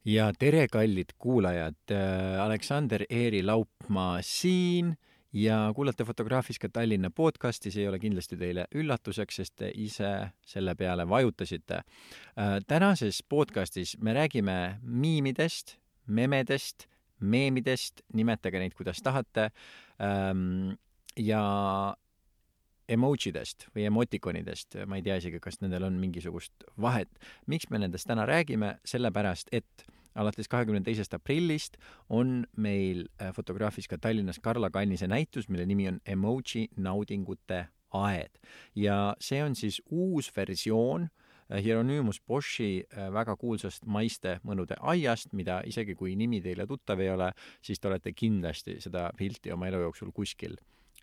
Ja tere, kallid kuulajad! Aleksander Eeri Laupmaa siin ja kuulate Fotograafiska Tallinna podcasti. See ei ole kindlasti teile üllatuseks, sest te ise selle peale vajutasite. Tänases podcastis me räägime miimidest, memedest, meemidest, nimetage neid, kuidas tahate, ja emojidest või emotikonidest. Ma ei tea isegi, kas nendel on mingisugust vahet. Miks me nendest täna räägime? Sellepärast, et alates 22. aprillist on meil Fotograafiska Tallinnas Karla Kannise näitus, mille nimi on Emoji naudingute aed. Ja see on siis uus versioon Hieronymus Boschi väga kuulsast maiste mõnude aiast, mida isegi kui nimi teile tuttav ei ole, siis te olete kindlasti seda pilti oma elu jooksul kuskil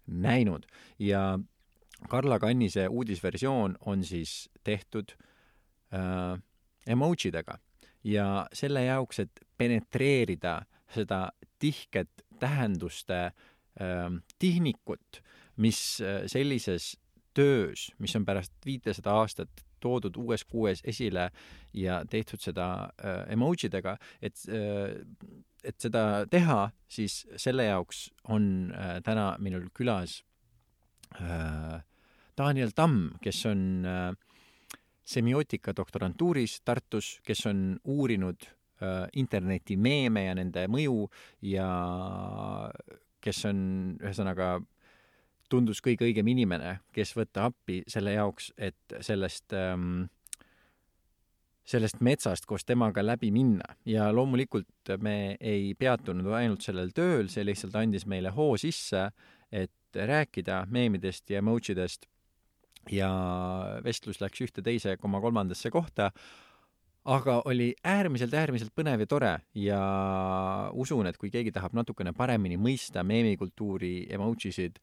näinud. Ja Karla Kannise uudisversioon on siis tehtud emojidega ja selle jaoks, et penetreerida seda tihket tähenduste tihnikut, mis sellises töös, mis on pärast 500 aastat toodud uues kuues esile ja tehtud seda emojidega, et seda teha, siis selle jaoks on täna minul külas Daniel Tamm, kes on semiootika doktorantuuris Tartus, kes on uurinud interneti meeme ja nende mõju ja kes on ühesõnaga tundus kõige õigem inimene, kes võtta appi selle jaoks, et sellest metsast koos temaga läbi minna. Ja loomulikult me ei peatunud ainult sellel tööl, see lihtsalt andis meile hoo sisse, et rääkida meemidest ja emojidest ja vestlus läks ühte teise koma kolmandasse kohta, aga oli äärmiselt põnev ja tore ja usun, et kui keegi tahab natukene paremini mõista meemikultuuri emojisid,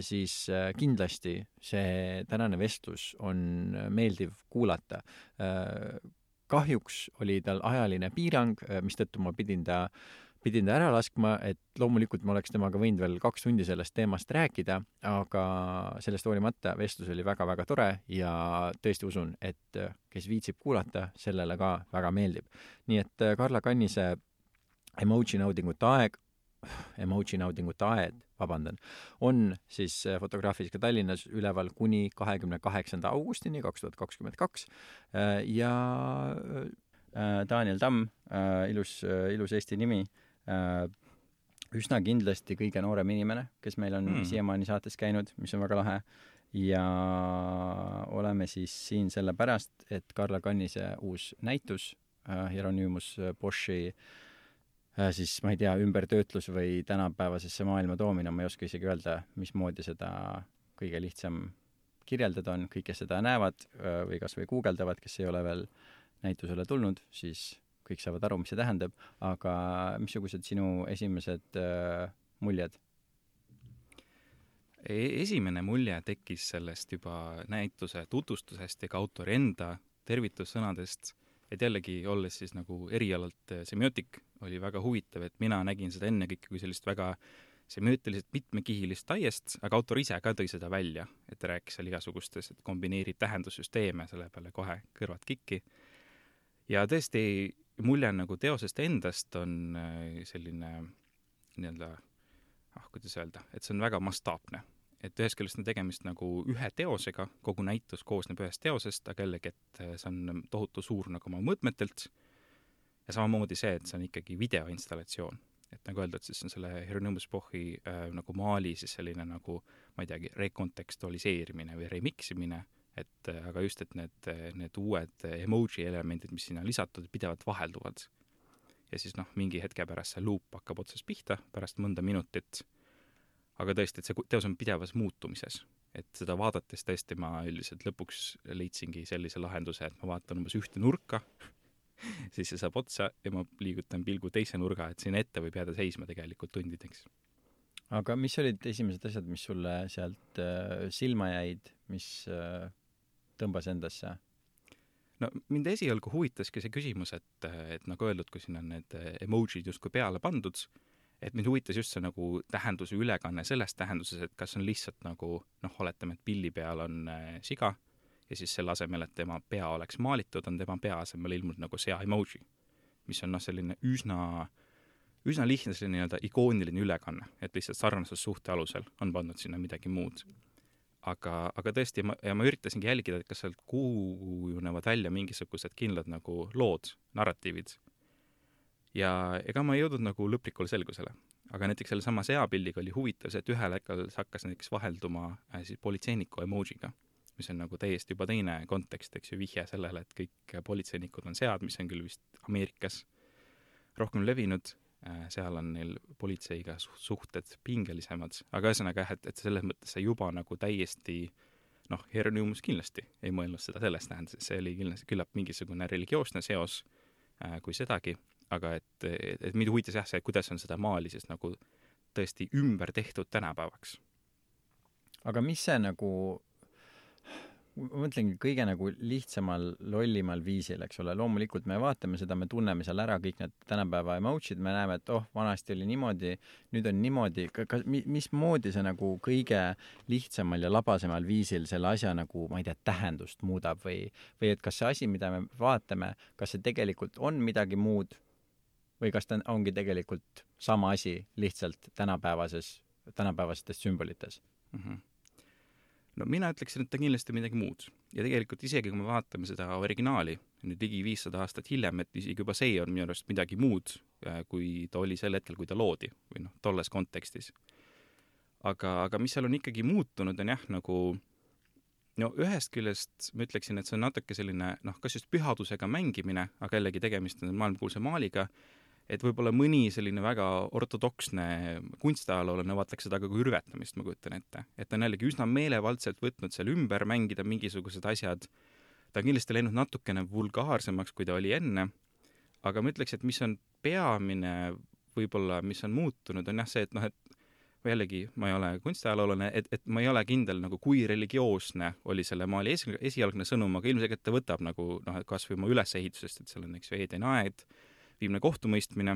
siis kindlasti see tänane vestlus on meeldiv kuulata. Kahjuks oli tal ajaline piirang, mistõttu ma pidin ta ära laskma, et loomulikult ma oleks temaga võinud veel 2 tundi sellest teemast rääkida, aga sellest hoolimata vestlus oli väga tore ja tõesti usun, et kes viitsib kuulata, sellele ka väga meeldib. Nii et Karla Kannise emoji naudingute aed, on siis Fotograafiska Tallinnas üleval kuni 28. augustini 2022 ja Daniel Tamm, ilus Eesti nimi, üsna kindlasti kõige noorem inimene, kes meil on siiamaani saates käinud, mis on väga lahe. Ja oleme siis siin sellepärast, et Karla Kannise uus näitus, Hieronymus Boschi, siis ma ei tea, ümbertöötlus või tänapäevasesse maailma toomine, ma ei oska isegi öelda, mismoodi seda kõige lihtsam kirjeldada on. Kõik, kes seda näevad või kas või guugeldavad, kes ei ole veel näitusele tulnud, siis kõik saavad aru, mis see tähendab, aga missugused sinu esimesed muljed? Esimene mulje tekkis sellest juba näituse tutvustusest ja ka autori enda tervitussõnadest, et jällegi olles siis nagu erialalt semiootik, oli väga huvitav, et mina nägin seda ennekõike kui sellist väga semiootilisest mitmekihilist aiest, aga autor ise ka tõi seda välja, et rääkis seal igasugustes, et kombineerib tähendussüsteeme, selle peale kohe kõrvad kikki. Ja tõesti, mulje nagu teosest endast on selline kuidas öelda, et see on väga mastaapne. Et ühest küljest on tegemist nagu ühe teosega, kogu näitus koosneb ühest teosest, aga jällegi, et see on tohutu suur nagu oma mõõtmetelt ja samamoodi see, et see on ikkagi videoinstallatsioon. Et nagu öeldud, siis on selle Hieronymus Boschi nagu maali siis selline nagu, ma ei teagi, rekontekstualiseerimine või remiximine, et aga just, et need uued emoji elemendid, mis sinna lisatud, pidevalt vahelduvad. Ja siis mingi hetke pärast see loop hakkab otsast pihta, pärast mõnda minutit. Aga tõesti, et see teos on pidevas muutumises. Et seda vaadates tõesti ma üldiselt lõpuks leidsingi sellise lahenduse, et ma vaatan umbes ühte nurka, siis see saab otsa ja ma liigutan pilgu teise nurga, et siin ette võib jääda seisma tegelikult tundideks. Aga mis olid esimesed asjad, mis sulle sealt silma jäid, mis tõmbas endasse? No mind esialgu huvitaski see küsimus, et nagu öeldud, kui siin on need emojid justkui peale pandud, et mind huvitas just see nagu tähenduse ülekanne selles tähenduses, et kas on lihtsalt nagu, oletame, et pilli peal on siga ja siis selle asemel, et tema pea oleks maalitud, on tema pea asemel ilmunud nagu sea emoji, mis on selline üsna lihtne selline nii-öelda ikooniline ülekanne, et lihtsalt sarnasussuhte alusel on pandud sinna midagi muud. Aga tõesti, ma üritasingi jälgida, et kas sealt kujunevad välja mingisugused kindlad nagu lood, narratiivid. Ja ega ma ei jõudnud nagu lõplikule selgusele. Aga näiteks selle sama seapildiga oli huvitav see, et ühel hetkel see hakkas näiteks vahelduma siis politseiniku emojiga, mis on nagu täiesti juba teine kontekst, eks ju, vihje sellele, et kõik politseinikud on sead, mis on küll vist Ameerikas rohkem levinud. Seal on neil politseiga suhted pingelisemad, aga ühesõnaga, et selles mõttes see juba nagu täiesti, Hieronymus kindlasti ei mõelnud seda sellest tähendas, see oli kindlasti küllap mingisugune religioosne seos kui sedagi, aga et mind huvitas jah see, kuidas on seda maali siis nagu tõesti ümber tehtud tänapäevaks. Aga mis see nagu, ma mõtlengi kõige nagu lihtsamal, lollimal viisil, eks ole, loomulikult me vaatame seda, me tunneme seal ära kõik need tänapäeva emotsid, me näeme, et vanasti oli niimoodi, nüüd on niimoodi, mismoodi see nagu kõige lihtsamal ja labasemal viisil selle asja nagu, ma ei tea, tähendust muudab või et kas see asi, mida me vaatame, kas see tegelikult on midagi muud või kas ta ongi tegelikult sama asi lihtsalt tänapäevastes sümbolites? No mina ütleksin, et ta kindlasti midagi muud. Ja tegelikult isegi, kui me vaatame seda originaali, nüüd ligi 500 aastat hiljem, et isegi juba see on minu arust midagi muud, kui ta oli sel hetkel, kui ta loodi või tolles kontekstis. Aga mis seal on ikkagi muutunud, on jah, nagu ühest küljest ma ütleksin, et see on natuke selline, kas just pühadusega mängimine, aga jällegi tegemist on maailmakuulsa maaliga, et võib-olla mõni selline väga ortodoksne kunstiajaloolane vaataks seda kui rüvetamist, ma kujutan ette. Et on jällegi üsna meelevaldselt võtnud seal ümber mängida mingisugused asjad. Ta on kindlasti läinud natukene vulgaarsemaks, kui ta oli enne, aga ma ütleks, et mis on peamine võib-olla, mis on muutunud, on jah see, et jällegi ma ei ole kunstiajaloolane, et ma ei ole kindel, nagu kui religioosne oli selle maali esialgne sõnum, aga ilmselt ta võtab nagu, kas või oma ülesehitusest, et seal on eks Eedeni aed, viimne kohtumõistmine,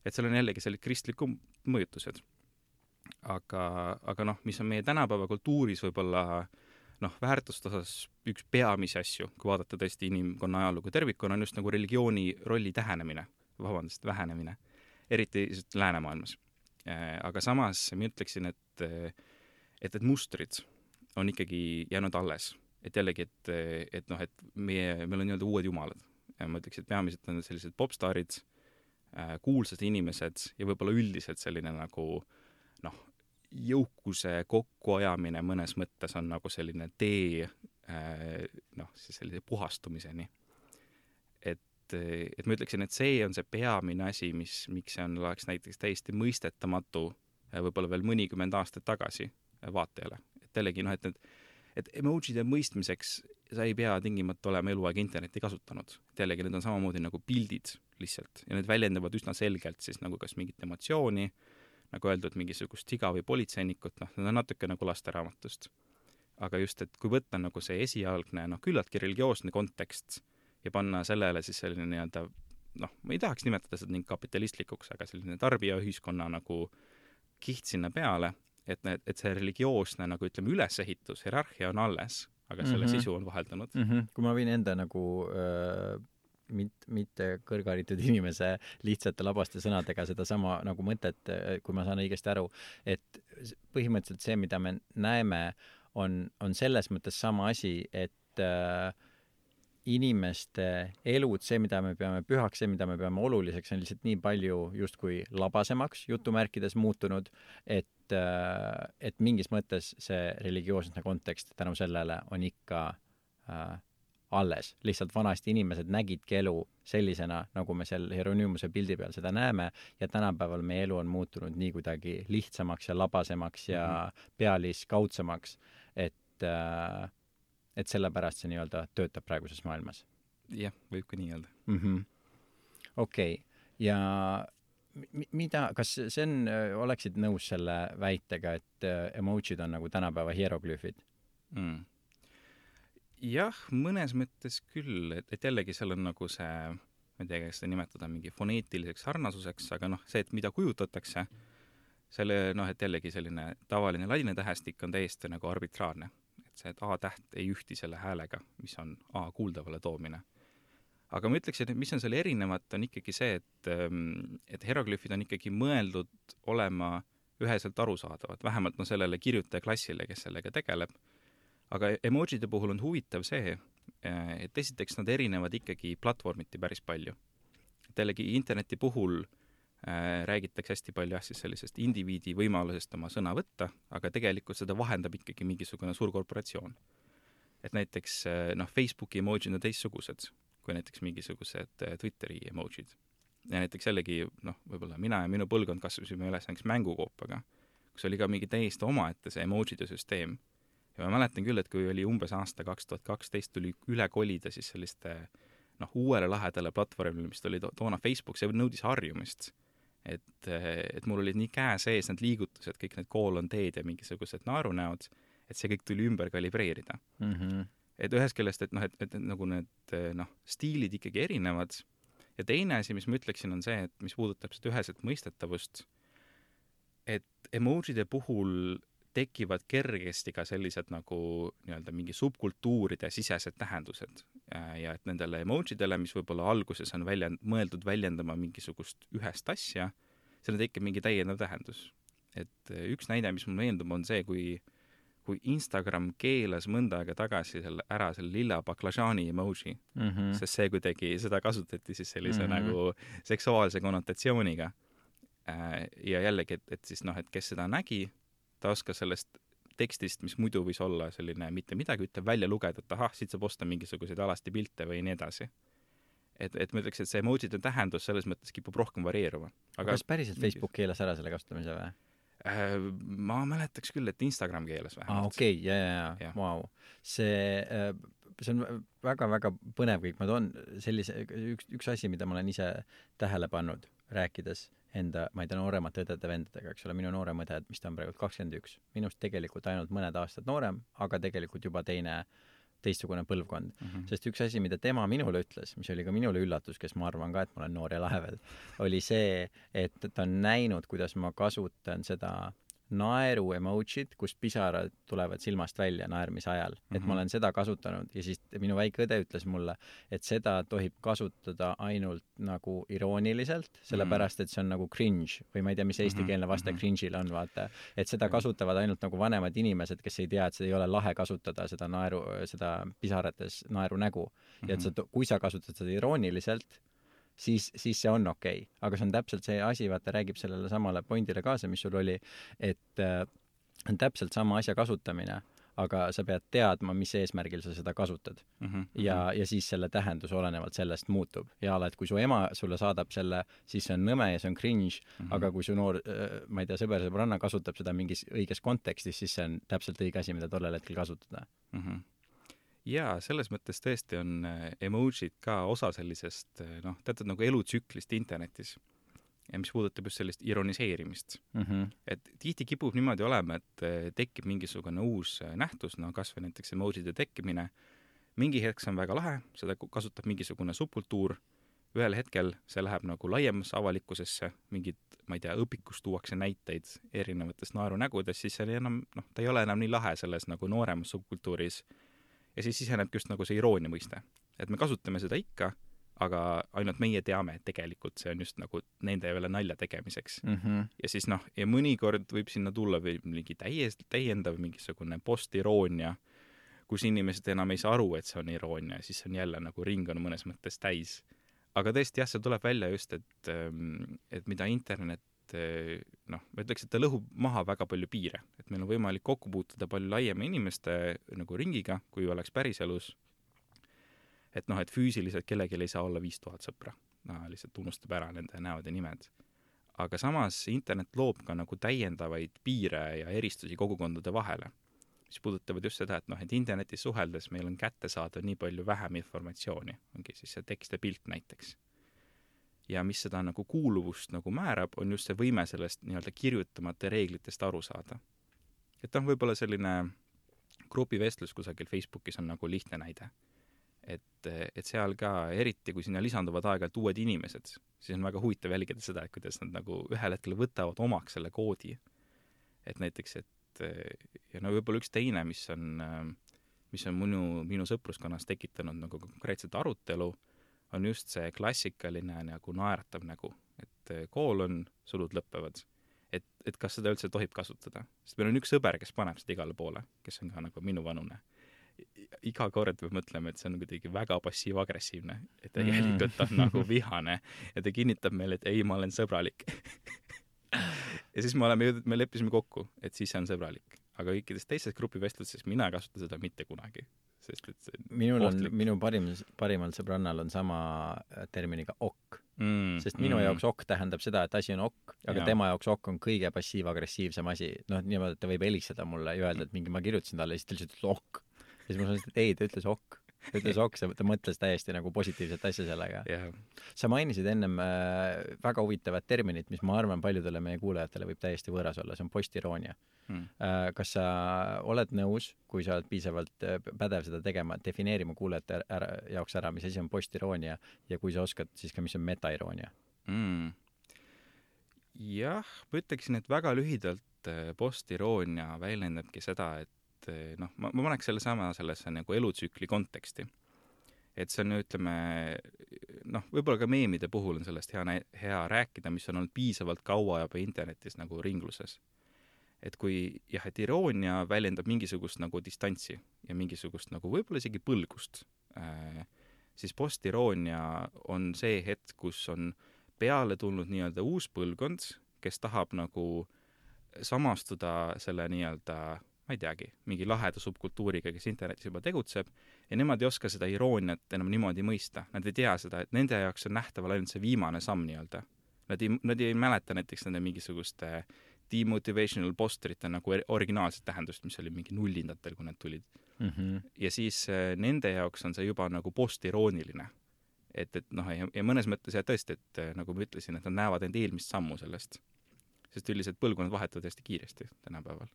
et seal on jällegi sellised kristlikud mõjutused. Aga mis on meie tänapäeva kultuuris võib-olla väärtuste osas üks peamisi asju, kui vaadata tõesti inimkonna ajalugu tervikuna, on just nagu religiooni rolli vähenemine, eriti läänemaailmas. Aga samas ma ütleksin, et mustrid on ikkagi jäänud alles. Et jällegi, et meil on nii-öelda uued jumalad. Ja ma ütleks, et peamiselt on sellised popstaarid, kuulsad inimesed ja võib-olla üldiselt selline nagu jõukuse kokkuajamine mõnes mõttes on nagu selline tee siis sellise puhastumiseni. Et ma ütleksin, et see on see peamine asi, miks see oleks näiteks täiesti mõistetamatu võib-olla veel mõnikümmend aastat tagasi vaatajale. Et jällegi, et emojide mõistmiseks sa ei pea tingimata olema eluaeg internetti kasutanud. Et jällegi need on samamoodi nagu pildid lihtsalt ja need väljendavad üsna selgelt siis nagu kas mingit emotsiooni, nagu öeldud, mingisugust siga või politseinikut, need on natuke nagu lasteraamatust. Aga just, et kui võtta nagu see esialgne, küllaltki religioosne kontekst ja panna sellele siis selline nii-öelda, ma ei tahaks nimetada seda nii kapitalistlikuks, aga selline tarbijaühiskonna nagu kiht sinna peale, et see religioosne nagu ütleme ülesehitus, hierarhia on alles, aga selle sisu on vaheldunud. Kui ma võin enda nagu mitte kõrgharitud inimese lihtsate labaste sõnadega seda sama nagu mõtet, kui ma saan õigesti aru, et põhimõtteliselt see, mida me näeme, on selles mõttes sama asi, et inimeste elud, see, mida me peame pühaks, see, mida me peame oluliseks, on lihtsalt nii palju justkui labasemaks jutumärkides muutunud, et mingis mõttes see religioosne kontekst tänu sellele on ikka alles. Lihtsalt vanasti inimesed nägidki elu sellisena, nagu me seal Hieronymuse pildi peal seda näeme ja tänapäeval meie elu on muutunud nii kuidagi lihtsamaks ja labasemaks ja pealiskaudsemaks, et sellepärast see nii-öelda töötab praeguses maailmas. Jah, võib ka nii öelda. Okei. Ja kas see oleksid nõus selle väitega, et emojid on nagu tänapäeva hieroglüüfid? Jah, mõnes mõttes küll, et jällegi seal on nagu see, ma ei tea, kas seda nimetada mingi foneetiliseks sarnasuseks, aga see, et mida kujutatakse, selle, et jällegi selline tavaline ladina tähestik on täiesti nagu arbitraarne. Et see, et A-täht ei ühti selle häälega, mis on A kuuldavale toomine. aga ma ütleksin, et mis on selle erinevat, on ikkagi see, et hieroglüüfid on ikkagi mõeldud olema üheselt arusaadavad, vähemalt sellele kirjutajaklassile, kes sellega tegeleb. Aga emojide puhul on huvitav see, et esiteks nad erinevad ikkagi platvormiti päris palju. Et jällegi interneti puhul räägitakse hästi palju siis sellisest indiviidi võimalusest oma sõna võtta, aga tegelikult seda vahendab ikkagi mingisugune suur korporatsioon. Et näiteks Facebooki emojid on teistsugused kui näiteks mingisugused Twitteri emojid. Ja näiteks jällegi, võib-olla mina ja minu põlvkond kasvasime üles näiteks mängukoopaga, kus oli ka mingi täiesti omaette see emojide süsteem. Ja ma mäletan küll, et kui oli umbes aasta 2012, tuli üle kolida siis selliste uuele lahedale platvormile, mis oli toona Facebook, see nõudis harjumist. Et mul olid nii käe sees need liigutused, kõik need koolonteed ja mingisugused naerunäod, et see kõik tuli ümber kalibreerida. Et ühest küljest, et nagu need stiilid ikkagi erinevad. Ja teine asi, mis ma ütleksin, on see, et mis puudutab seda üheselt mõistetavust, et emojide puhul tekivad kergesti ka sellised nagu mingi subkultuuride sisesed tähendused. Ja et nendele emojidele, mis võib-olla alguses on mõeldud väljendama mingisugust ühest asja, selle tekib mingi täiendav tähendus. Et üks näide, mis mul meeldub, on see, kui Instagram keelas mõnda aega tagasi ära selle lilla baklažaani emoji, sest see kuidagi, seda kasutati siis sellise nagu seksuaalse konnotatsiooniga. Ja jällegi, et siis et kes seda nägi, ta oskas sellest tekstist, mis muidu võis olla selline mitte midagi, ütleb välja lugeda, et siit saab osta mingisuguseid alasti pilte või nii edasi. Et ma ütleks, et see emojide tähendus selles mõttes kipub rohkem varieeruma. Aga kas päriselt Facebook keelas ära selle kasutamise või? Ma mäletaks küll, et Instagram keelas vähemalt. Okei, jaa. Wow. See on väga-väga põnev kõik. Ma toon sellise, üks asi, mida ma olen ise tähele pannud, rääkides enda, ma ei tea, nooremate õdede vendadega, eks ole, minu noorem õde, mis ta on praegu 21. Minust tegelikult ainult mõned aastad noorem, aga tegelikult juba teistsugune põlvkond. Sest üks asi, mida tema minule ütles, mis oli ka minule üllatus, kes ma arvan ka, et ma olen noor ja lahe veel, oli see, et ta on näinud, kuidas ma kasutan seda naeru emojid, kus pisarad tulevad silmast välja naermise ajal. Et ma olen seda kasutanud ja siis minu väike õde ütles mulle, et seda tohib kasutada ainult nagu irooniliselt, sellepärast, et see on nagu cringe või ma ei tea, mis eestikeelne vaste cringe'il on, vaata. Et seda kasutavad ainult nagu vanemad inimesed, kes ei tea, et seda ei ole lahe kasutada, seda pisarates naeru nägu. Ja et kui sa kasutad seda irooniliselt, siis see on okei. Aga see on täpselt see asi, vaata, räägib sellele samale pointile kaasa, mis sul oli, et on täpselt sama asja kasutamine, aga sa pead teadma, mis eesmärgil sa seda kasutad. Ja siis selle tähendus olenevalt sellest muutub. Ja et kui su ema sulle saadab selle, siis see on nõme ja see on cringe, aga kui su noor, ma ei tea, sõber-sõbranna kasutab seda mingis õiges kontekstis, siis see on täpselt õige asi, mida tollel hetkel kasutada. Jaa, selles mõttes tõesti on emojid ka osa sellisest, teatud nagu elutsüklist internetis, ja mis puudutab just sellist ironiseerimist. Et tihti kipub niimoodi olema, et tekib mingisugune uus nähtus, kas või näiteks emojide tekkimine. Mingi hetk see on väga lahe, seda kasutab mingisugune subkultuur, ühel hetkel see läheb nagu laiemasse avalikkusesse, mingid, ma ei tea, õpikus tuuakse näiteid erinevatest naerunägudest, siis see enam, ta ei ole enam nii lahe selles nagu nooremas subkultuuris. Ja siis sisenebki just nagu see iroonia mõiste. Et me kasutame seda ikka, aga ainult meie teame, et tegelikult see on just nagu nende üle nalja tegemiseks. Ja siis ja mõnikord võib sinna tulla või mingi täiendav mingisugune postiroonia, kus inimesed enam ei saa aru, et see on iroonia, siis on jälle nagu ring on mõnes mõttes täis. Aga tõesti jah, see tuleb välja just, et mida internet ma ütleks, et ta lõhub maha väga palju piire, et meil on võimalik kokku puutuda palju laiema inimeste nagu ringiga, kui oleks päriselus, et et füüsiliselt kellelgi ei saa olla 5000 sõpra, lihtsalt unustab ära nende näod ja nimed. Aga samas internet loob ka nagu täiendavaid piire ja eristusi kogukondade vahele, mis puudutavad just seda, et internetis suheldes meil on kätte saada nii palju vähem informatsiooni, ongi siis see tekst ja pilt näiteks. Ja mis seda nagu kuuluvust nagu määrab, on just see võime sellest nii-öelda kirjutamata reeglitest aru saada. Et võib-olla selline grupivestlus kusagil Facebookis on nagu lihtne näide. Et seal ka, eriti kui sinna lisanduvad aeg-ajalt uued inimesed, siis on väga huvitav jälgida seda, et kuidas nad nagu ühel hetkel võtavad omaks selle koodi. Et näiteks, ja võib-olla üks teine, mis on minu sõpruskonnas tekitanud nagu konkreetset arutelu, on just see klassikaline nagu naeratav nägu, et koolon, sulud lõppevad. Et kas seda üldse tohib kasutada. Sest meil on üks sõber, kes paneb seda igale poole, kes on ka nagu minu vanune. Iga kord peab mõtlema, et see on kuidagi väga passiiv-agressiivne, et tegelikult on nagu vihane ja ta kinnitab meile, et ei, ma olen sõbralik. Ja siis me leppisime kokku, et siis see on sõbralik. Aga kõikides teistes grupivestlustes mina ei kasuta seda mitte kunagi. Sest et see minu parimal sõbrannal on sama terminiga ok. Sest minu jaoks ok tähendab seda, et asi on ok, aga tema jaoks ok on kõige passiiv-agressiivsem asi. Niimoodi, et ta võib helistada mulle ja öelda, et ma kirjutasin talle ja siis ta lihtsalt ütles ok. Ja siis ma sanoin, et ei, ta ütles ok. Ta mõtles täiesti nagu positiivset asja sellega. Sa mainisid ennem väga huvitavat terminit, mis ma arvan paljudele meie kuulajatele võib täiesti võõras olla, see on postiroonia. Kas sa oled nõus, kui sa oled piisavalt pädev seda tegema, defineerima kuulajate jaoks ära, mis asi on postiroonia ja kui sa oskad, siis ka mis on metairoonia? Jah, ma ütleksin, et väga lühidalt postiroonia väljendabki seda, et ma paneks sellesse nagu elutsükli konteksti. Et see on, ütleme, võib-olla ka meemide puhul on sellest hea rääkida, mis on olnud piisavalt kaua juba internetis nagu ringluses. Et kui et iroonia väljendab mingisugust nagu distantsi ja mingisugust nagu võib-olla isegi põlgust, siis postiroonia on see hetk, kus on peale tulnud nii-öelda uus põlvkond, kes tahab nagu samastuda selle nii-öelda ma ei teagi, mingi laheda subkultuuriga, kes internetis juba tegutseb ja nemad ei oska seda irooniat enam niimoodi mõista. Nad ei tea seda, et nende jaoks on nähtaval ainult see viimane samm nii-öelda. Nad ei mäleta näiteks nende mingisuguste demotivational posterite nagu originaalset tähendust, mis oli mingi nullindatel, kui need tulid. Ja siis nende jaoks on see juba nagu postirooniline. Ja mõnes mõttes tõesti, et nagu ma ütlesin, et nad näevad end eelmist sammu sellest. Sest üldiselt põlvkonnad vahetuvad hästi kiiresti tänapäeval.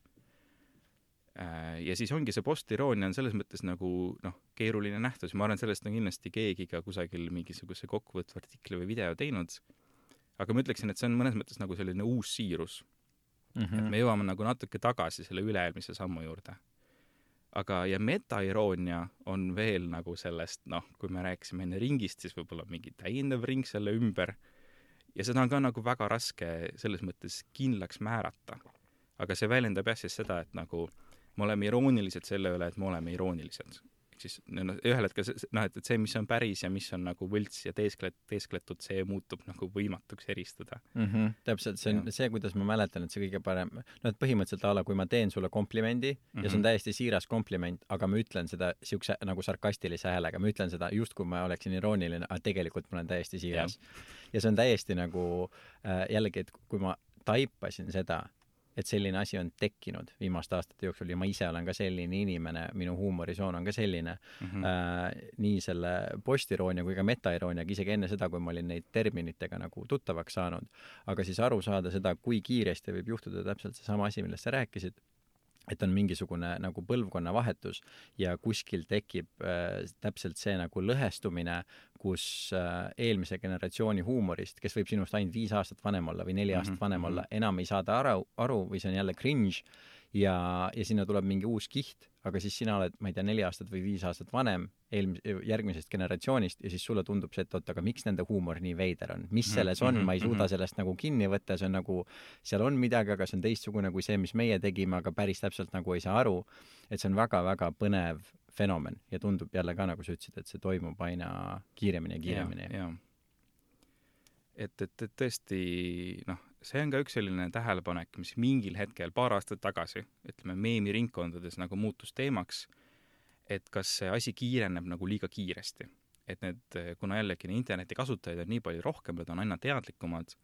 Ja siis ongi see postiroonia on selles mõttes nagu keeruline nähtus. Ma arvan, sellest on kindlasti keegi ka kusagil mingisuguse kokkuvõtva artikli või video teinud. Aga ma ütleksin, et see on mõnes mõttes nagu selline uus siirus. Et me jõuame nagu natuke tagasi selle üleelmise sammu juurde. Aga ja metairoonia on veel nagu sellest, kui me rääkisime enne ringist, siis võib-olla mingi täiendav ring selle ümber. Ja seda on ka nagu väga raske selles mõttes kindlaks määrata. Aga see väljendab siis seda, et nagu me oleme iroonilised selle üle, et me oleme iroonilised. Siis ühel hetkel, et see, mis on päris ja mis on nagu võlts ja teeskletud, see muutub nagu võimatuks eristada. Täpselt, see on see, kuidas ma mäletan, et see kõige parem, et põhimõtteliselt ala, kui ma teen sulle komplimendi ja see on täiesti siiras kompliment, aga ma ütlen seda siukse nagu sarkastilise häälega, ma ütlen seda just, kui ma oleksin irooniline, aga tegelikult ma olen täiesti siiras. Ja see on täiesti nagu jällegi, et kui ma taipasin seda, et selline asi on tekkinud viimaste aastate jooksul ja ma ise olen ka selline inimene, minu huumorisoon on ka selline, nii selle postiroonia kui ka metairoonia, isegi enne seda, kui ma olin neid terminitega nagu tuttavaks saanud, aga siis aru saada seda, kui kiiresti võib juhtuda täpselt see sama asi, millest sa rääkisid, et on mingisugune nagu põlvkonna vahetus ja kuskil tekib täpselt see nagu lõhestumine, kus eelmise generatsiooni huumorist, kes võib sinust ainult 5 aastat vanem olla või 4 aastat vanem olla, enam ei saada aru või see on jälle cringe ja sinna tuleb mingi uus kiht, aga siis sina oled, ma ei tea, 4 aastat või 5 aastat vanem järgmisest generatsioonist ja siis sulle tundub see, et aga miks nende huumor nii veider on? Mis selles on? Ma ei suuda sellest nagu kinni võtta, see on nagu, seal on midagi, aga see on teistsugune kui see, mis meie tegime, aga päris täpselt nagu ei saa aru, et see on väga-väga põnev fenomen ja tundub jälle ka, nagu sa ütlesid, et see toimub aina kiiremini ja kiiremini. Ja. Et tõesti, see on ka üks selline tähelepanek, mis mingil hetkel paar aastat tagasi, ütleme, meemiringkondades nagu muutus teemaks, et kas see asi kiireneb nagu liiga kiiresti. Et kuna jällegi interneti kasutajaid on nii palju rohkem, nad on aina teadlikumad,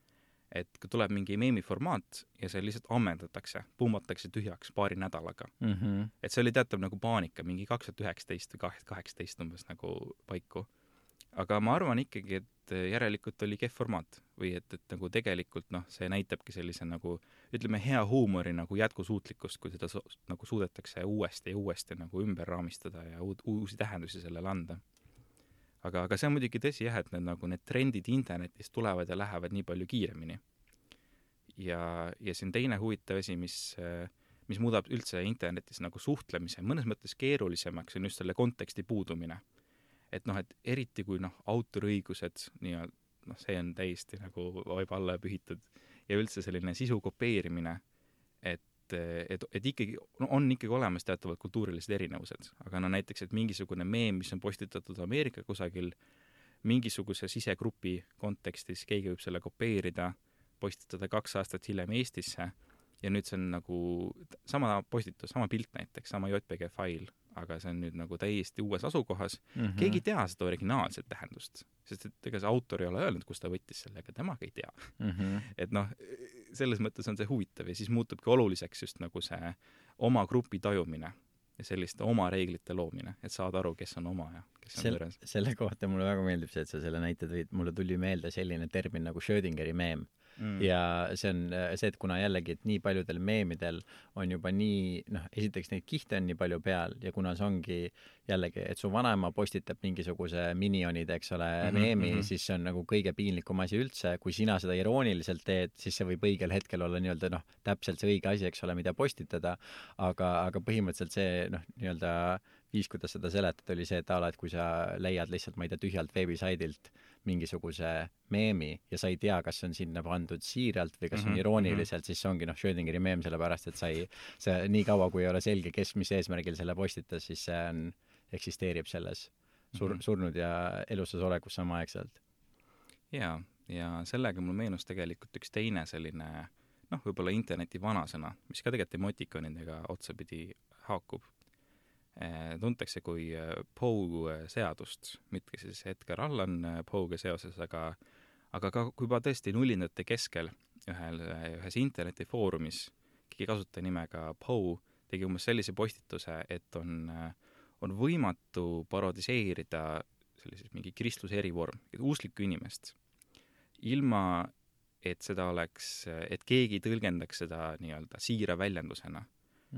et kui tuleb mingi meemiformaat ja see lihtsalt ammendatakse, pummatakse tühjaks paari nädalaga. Et see oli teatav nagu paanika, mingi 2019 või 2018 umbes nagu paiku. Aga ma arvan ikkagi, et järelikult oli kehv formaat või et nagu tegelikult see näitabki sellise nagu, ütleme, hea huumori nagu jätkusuutlikkust, kui seda nagu suudetakse uuesti ja uuesti nagu ümber raamistada ja uusi tähendusi sellele anda. Aga see on muidugi tõsi jah, et need trendid internetis tulevad ja lähevad nii palju kiiremini. Ja see on teine huvitav asi, mis muudab üldse internetis nagu suhtlemise mõnes mõttes keerulisemaks, on just selle konteksti puudumine. et noh, et eriti kui noh, autoriõigused nii-öelda, noh, see on täiesti nagu vaiba alla pühitud ja üldse selline sisu kopeerimine, et ikkagi, no on ikkagi olemas teatavad kultuurilised erinevused, aga no näiteks, et mingisugune meem, mis on postitatud Ameerika kusagil, mingisuguse sisegrupi kontekstis keegi võib selle kopeerida, postitada 2 aastat hiljem Eestisse ja nüüd see on nagu sama postitus, sama pilt näiteks, sama JPG fail, aga see on nüüd nagu täiesti uues asukohas. Keegi ei tea seda originaalset tähendust, sest et ega see autor ei ole öelnud, kus ta võttis selle, aga temaga ei tea. Et noh, selles mõttes on see huvitav ja siis muutubki oluliseks just nagu see oma grupi tajumine ja selliste oma reeglite loomine, et saada aru, kes on oma ja kes on võõras. Selle kohta mulle väga meeldib see, et sa selle näite tõid, mulle tuli meelde selline termin nagu Schrödingeri meem. Ja see on see, et kuna jällegi, et nii paljudel meemidel on juba nii, noh, esiteks neid kihte on nii palju peal ja kuna see ongi jällegi, et su vanaema postitab mingisuguse minionide, eks ole, meemi, siis see on nagu kõige piinlikum asi üldse. Kui sina seda irooniliselt teed, siis see võib õigel hetkel olla nii-öelda, noh, täpselt see õige asi, eks ole, mida postitada, aga põhimõtteliselt see, noh, nii-öelda viis, kuidas seda seletada, oli see, et et kui sa leiad lihtsalt, ma ei tea, tühjalt veebisaidilt mingisuguse meemi ja sa ei tea, kas see on sinna pandud siiralt või kas on irooniliselt, siis see ongi, noh, Schrödingeri meem, sellepärast, et see nii kaua, kui ei ole selge, kes mis eesmärgil selle postitas, siis see on, eksisteerib selles surnud ja elussas olekus samaaegselt. Ja sellega mul meenus tegelikult üks teine selline, noh, võib-olla interneti vanasõna, mis ka tegelikult emotikonidega otsapidi haakub. Tuntakse kui Poe seadust, mitte siis Edgar Allan Poe'ga seoses, aga ka kui juba tõesti nullindate keskel ühes internetifoorumis keegi kasutaja nimega Poe tegi umbes sellise postituse, et on võimatu parodiseerida sellises mingi kristluse erivorm, usklikku inimest, ilma et seda oleks, et keegi tõlgendaks seda nii-öelda siira väljendusena.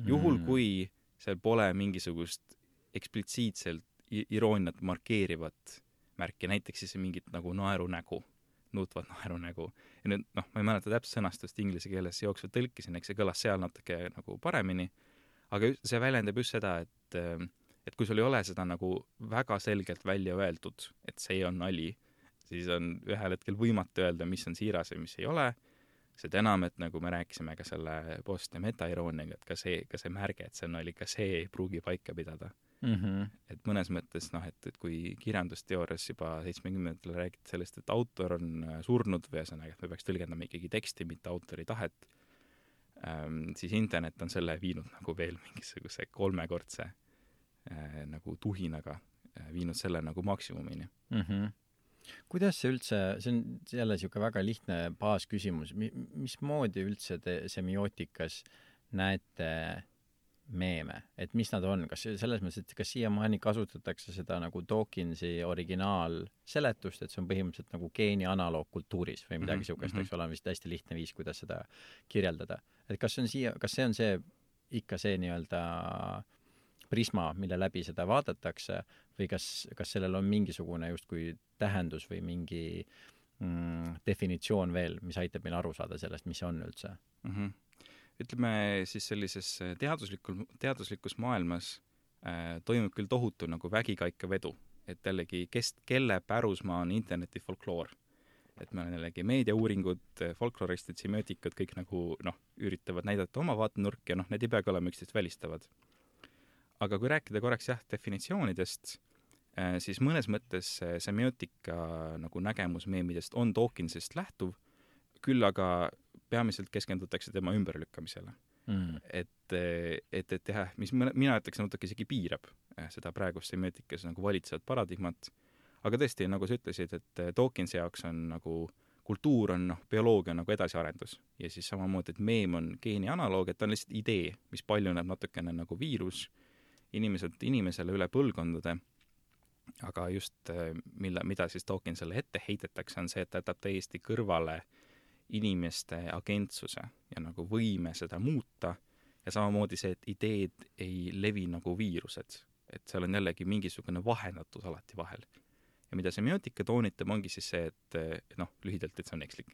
Juhul kui seal pole mingisugust eksplitsiitselt irooniat markeerivat märki, näiteks siis mingit nagu naerunägu, nuutvat naerunägu. Ja nüüd, noh, ma ei mäleta täpselt sõnastust inglise keeles jooksvalt tõlkisin, eks see kõlas seal natuke nagu paremini, aga see väljendab just seda, et kui sul ei ole seda nagu väga selgelt välja öeldud, et see on nali, siis on ühel hetkel võimatu öelda, mis on siiras ja mis ei ole. Seda enam, et nagu me rääkisime ka selle post- ja meta-irooniaga, et ka see märge, et see on nali, ka see ei pruugi paika pidada. Et mõnes mõttes, noh, et kui kirjandusteoorias juba 70-ndatel räägiti sellest, et autor on surnud või ühesõnaga, et me peaks tõlgendama ikkagi teksti, mitte autori tahet, siis internet on selle viinud nagu veel mingisuguse 3-kordse nagu tuhinaga, viinud selle nagu maksimumini. Kuidas see üldse, see on jälle niisugune väga lihtne baasküsimus, mismoodi üldse te semiootikas näete meeme, et mis nad on, kas selles mõttes, et kas siiamaani kasutatakse seda nagu Dawkinsi originaalseletust, et see on põhimõtteliselt nagu geeni analoog kultuuris või midagi niisugust, eks ole, vist hästi lihtne viis, kuidas seda kirjeldada. Et kas see on see ikka see nii-öelda prisma, mille läbi seda vaadatakse või kas sellel on mingisugune justkui tähendus või mingi definitsioon veel, mis aitab meil aru saada sellest, mis see on üldse? Ütleme siis sellises teaduslikus maailmas toimub küll tohutu nagu vägikaika vedu, et jällegi kelle pärusmaa on interneti folkloor. Et meil on jällegi meediauuringud, folkloristid, semiootikud, kõik nagu üritavad näidata oma vaatenurki ja need ei peagi olema üksteist välistavad. Aga kui rääkida korraks definitsioonidest, siis mõnes mõttes semiootika nagu nägemus meemidest on Dawkinsist lähtuv, küll aga peamiselt keskendutakse tema ümberlükkamisele. Et jah, mis mina ütleks natuke isegi piirab seda praegust semiotikas nagu valitsevat paradigmat, aga tõesti, nagu sa ütlesid, et Dawkinsi jaoks on nagu kultuur on bioloogia nagu edasiarendus ja siis samamoodi, et meem on geeni analoog, et on lihtsalt idee, mis paljuneb natukene nagu viirus inimeselt inimesele üle põlvkondade, aga just mida siis Dawkinsile ette heitetakse, on see, et ta jätab täiesti kõrvale inimeste agentsuse ja nagu võime seda muuta ja samamoodi see, et ideed ei levi nagu viirused, et seal on jällegi mingisugune vahendatus alati vahel. Ja mida semiootika toonitab, ongi siis see, et lühidalt, et see on ekslik.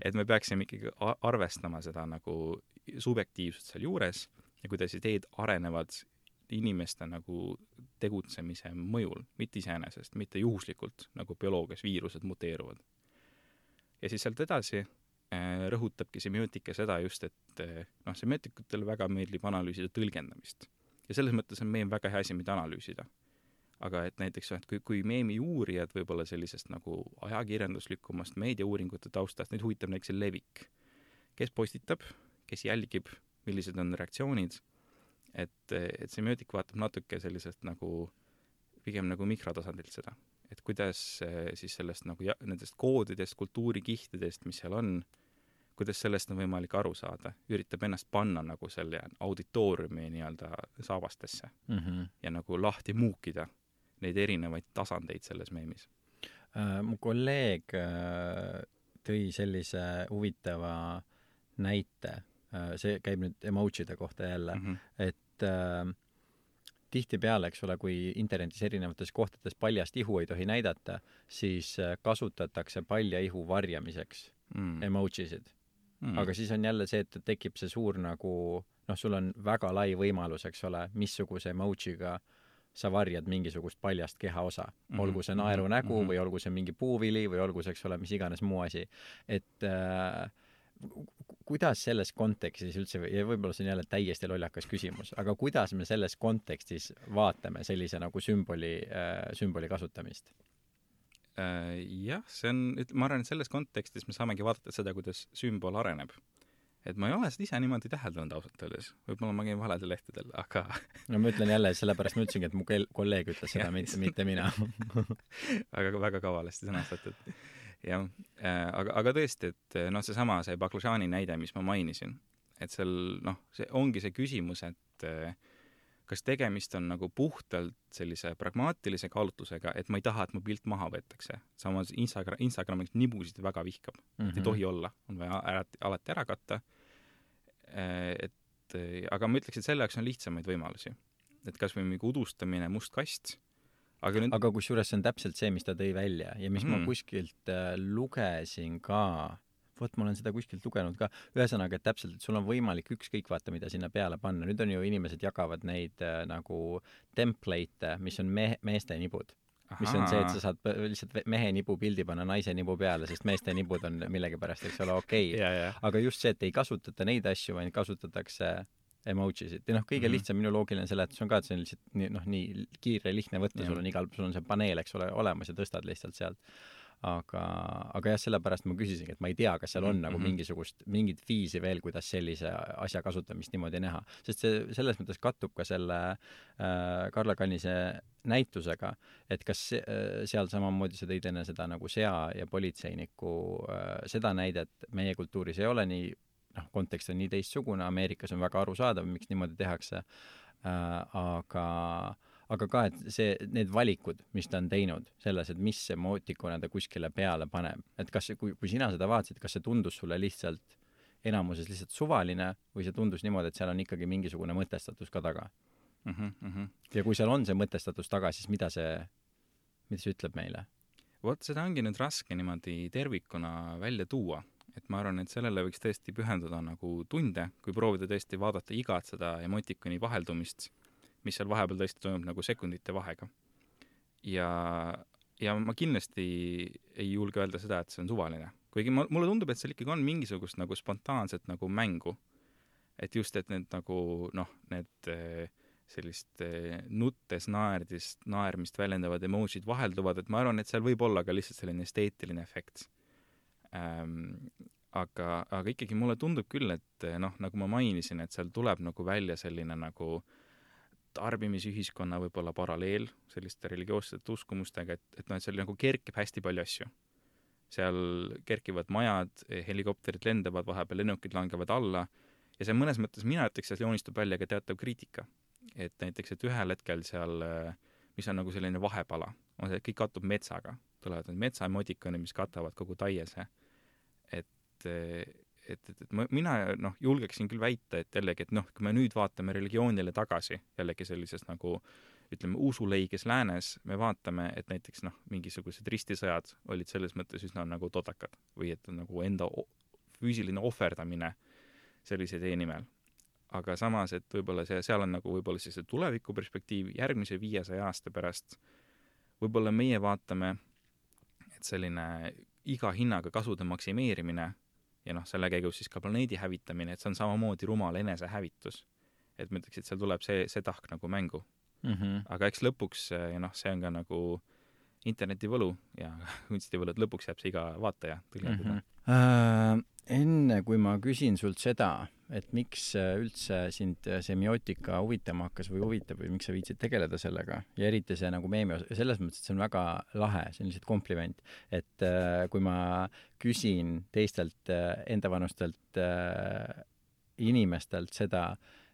Et me peaksime ikkagi arvestama seda nagu subjektiivsust seal juures ja kuidas ideed arenevad inimeste nagu tegutsemise mõjul, mitte iseenesest, mitte juhuslikult, nagu bioloogias viirused muteeruvad. Ja siis sealt edasi rõhutabki semiootika seda just, et semiootikutele väga meeldib analüüsida tõlgendamist. Ja selles mõttes on meem väga hea asi, mida analüüsida. Aga et näiteks, et kui meemi uurijad võib-olla sellisest nagu ajakirjanduslikumast meediauuringute taustast, neid huvitab näiteks levik. Kes postitab, kes jälgib, millised on reaktsioonid, et semiootik vaatab natuke sellisest nagu, pigem nagu mikrotasandilt seda. Et kuidas siis sellest nagu nendest koodidest, kultuurikihtidest, mis seal on, kuidas sellest on võimalik aru saada, üritab ennast panna nagu selle auditooriumi nii-öelda saabastesse ja nagu lahti muukida neid erinevaid tasandeid selles meemis. Mu kolleeg tõi sellise huvitava näite, see käib nüüd emojide kohta jälle, et tihtipeale, eks ole, kui internetis erinevates kohtades paljast ihu ei tohi näidata, siis kasutatakse palja ihu varjamiseks emojisid. Aga siis on jälle see, et tekib see suur nagu, sul on väga lai võimalus, eks ole, missuguse emojiga sa varjad mingisugust paljast kehaosa. Olgu see naeru nägu või olgu see mingi puuvili või olgu see, eks ole, mis iganes muu asi. Et kuidas selles kontekstis üldse, ja võib-olla see on jälle täiesti lollakas küsimus, aga kuidas me selles kontekstis vaatame sellise nagu sümboli kasutamist? Jah, see on, ma arvan, et selles kontekstis me saamegi vaadata seda, kuidas sümbol areneb. Et ma ei ole seda ise niimoodi täheldanud ausalt öeldes. Võib-olla ma käin valedel lehtedel, aga... No ma ütlen jälle, sellepärast ma ütlesingi, et mu kolleeg ütles seda, mitte mina. Aga väga kavalasti sõnastatud. Jah, aga tõesti, et seesama, see baklažaani näide, mis ma mainisin, et seal, see ongi see küsimus, et kas tegemist on nagu puhtalt sellise pragmaatilise kaalutlusega, et ma ei taha, et mu pilt maha võetakse. Samas Instagramiks nibusid väga vihkab. Ei tohi olla. On vaja alati ära katta. Aga ma ütleks, et selle jaoks on lihtsamaid võimalusi. Et kas või mingi udustamine, must kast. Aga kusjuures see on täpselt see, mis ta tõi välja ja mis ma kuskilt lugesin ka, ma olen seda kuskilt lugenud ka, ühesõnaga, et täpselt, et sul on võimalik ükskõik vaata, mida sinna peale panna. Nüüd on ju inimesed jagavad neid nagu template'e, mis on meeste nibud. Mis on see, et sa saad lihtsalt mehe nibu pildi panna naise nibu peale, sest meeste nibud on millegipärast, eks ole, okei. Aga just see, et ei kasutata neid asju, vaid kasutatakse emojisid. Ja kõige lihtsam minu loogiline seletus on ka, et see on lihtsalt nii kiire, lihtne võtta, sul on see paneel, eks ole, olemas ja tõstad lihtsalt sealt. Aga jah, sellepärast ma küsisingi, et ma ei tea, kas seal on nagu mingit viisi veel, kuidas sellise asja kasutamist niimoodi näha. Sest see selles mõttes kattub ka selle Karla Kannise näitusega, et kas seal samamoodi sa tõid enne seda nagu sea ja politseiniku seda näidet meie kultuuris ei ole nii, kontekst on nii teistsugune, Ameerikas on väga arusaadav, miks niimoodi tehakse, aga ka, et need valikud, mis ta on teinud selles, et mis emootikuna ta kuskile peale paneb, et kas, kui sina seda vaatasid, kas see tundus sulle lihtsalt enamuses lihtsalt suvaline või see tundus niimoodi, et seal on ikkagi mingisugune mõtestatus ka taga? Ja kui seal on see mõtestatus taga, siis mida see ütleb meile? Vot seda ongi nüüd raske niimoodi tervikuna välja tuua. Et ma arvan, et sellele võiks tõesti pühenduda nagu tunde, kui proovida tõesti vaadata igat seda emotikoni vaheldumist, mis seal vahepeal tõesti toimub nagu sekundite vahega. Ja ma kindlasti ei julge öelda seda, et see on suvaline. Kuigi mulle tundub, et seal ikkagi on mingisugust nagu spontaanset nagu mängu. Et just, et need nagu, need sellist nuttes naermist väljendavad emojid vahelduvad, et ma arvan, et seal võib olla ka lihtsalt selline esteetiline efekt. Aga ikkagi mulle tundub küll, et nagu ma mainisin, et seal tuleb nagu välja selline nagu tarbimisühiskonna võib-olla paralleel selliste religioossete uskumustega, et seal nagu kerkib hästi palju asju. Seal kerkivad majad, helikopterid lendavad, vahepeal lennukid langevad alla ja see mõnes mõttes mina ütleks, et joonistub välja ka teatav kriitika. Et näiteks, et ühel hetkel seal, mis on nagu selline vahepala, on see, et kõik kattub metsaga. Tulevad need metsaemodikoni, mis katavad kogu taiese. Et mina julgeksin küll väita, et jällegi, et kui me nüüd vaatame religioonile tagasi, jällegi sellises nagu, ütleme, usuleiges läänes, me vaatame, et näiteks mingisugused ristisõjad olid selles mõttes üsna nagu todakad või et nagu enda füüsiline ohverdamine sellise tee nimel. aga samas, et võib-olla seal on nagu võib-olla siis see tulevikuperspektiiv järgmise 500 aasta pärast, võib-olla meie vaatame, et selline iga hinnaga kasude maksimeerimine ja selle käigus siis ka planeedi hävitamine, et see on samamoodi rumal enesehävitus. Et ma ütleks, et seal tuleb see tahk nagu mängu. Aga eks lõpuks, ja see on ka nagu interneti võlu ja kunstivõlu, et lõpuks jääb see iga vaataja tõlgendada. Enne kui ma küsin sult seda, et miks üldse sind semiootika huvitama hakkas või huvitab või miks sa viitsid tegeleda sellega ja eriti see nagu meemi osa, selles mõttes, et see on väga lahe, see on lihtsalt kompliment, et kui ma küsin teistelt endavanustelt inimestelt seda,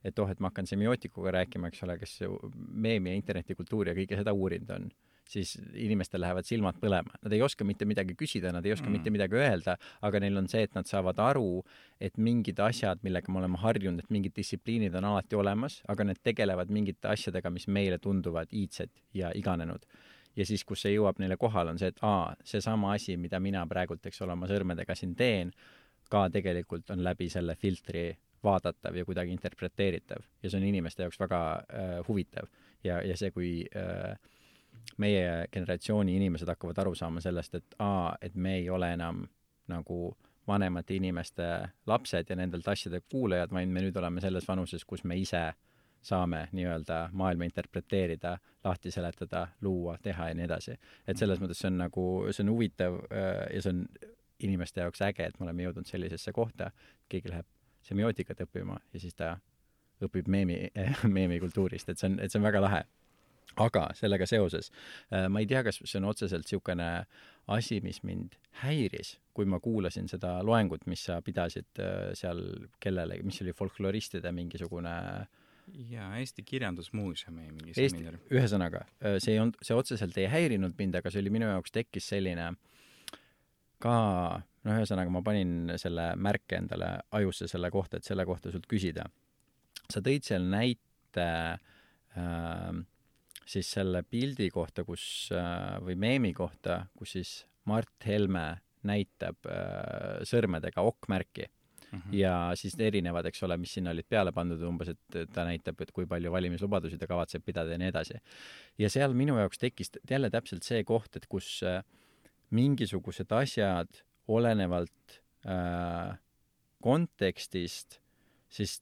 et et ma hakkan semiootikuga rääkima, eks ole, kes meemi ja internetikultuuri ja kõike seda uurinud on, siis inimestel lähevad silmad põlema. Nad ei oska mitte midagi küsida, nad ei oska mitte midagi öelda, aga neil on see, et nad saavad aru, et mingid asjad, millega me oleme harjunud, et mingid distsipliinid on alati olemas, aga need tegelevad mingite asjadega, mis meile tunduvad iidsed ja iganenud. Ja siis, kus see jõuab neile kohal, on see, et see sama asi, mida mina praegult, eks ole, oma sõrmedega siin teen, ka tegelikult on läbi selle filtri vaadatav ja kuidagi interpreteeritav. Ja see on inimeste jaoks väga huvitav. Ja see, kui meie generatsiooni inimesed hakkavad aru saama sellest, et me ei ole enam nagu vanemate inimeste lapsed ja nendelt asjade kuulajad, vaid me nüüd oleme selles vanuses, kus me ise saame nii-öelda maailma interpreteerida, lahti seletada, luua, teha ja nii edasi. Et selles mõttes see on huvitav ja see on inimeste jaoks äge, et me oleme jõudnud sellisesse kohta, keegi läheb semiootikat õppima ja siis ta õpib meemi kultuurist, et see on väga lahe. Aga sellega seoses, ma ei tea, kas see on otseselt niisugune asi, mis mind häiris, kui ma kuulasin seda loengut, mis sa pidasid seal kellelegi, mis oli folkloristide mingisugune Eesti Kirjandusmuuseumi mingi seminar. Ühesõnaga, see otseselt ei häirinud mind, aga see oli minu jaoks tekkis selline ka, ühesõnaga ma panin selle märke endale ajusse selle kohta, et selle kohta sult küsida. Sa tõid seal näite siis selle pildi kohta, või meemi kohta, kus siis Mart Helme näitab sõrmedega okkmärki ja siis erinevad, eks ole, mis sinna olid peale pandud umbes, et ta näitab, et kui palju valimislubadusi ta kavatseb pidada ja nii edasi. Ja seal minu jaoks tekkis jälle täpselt see koht, et kus mingisugused asjad olenevalt kontekstist, siis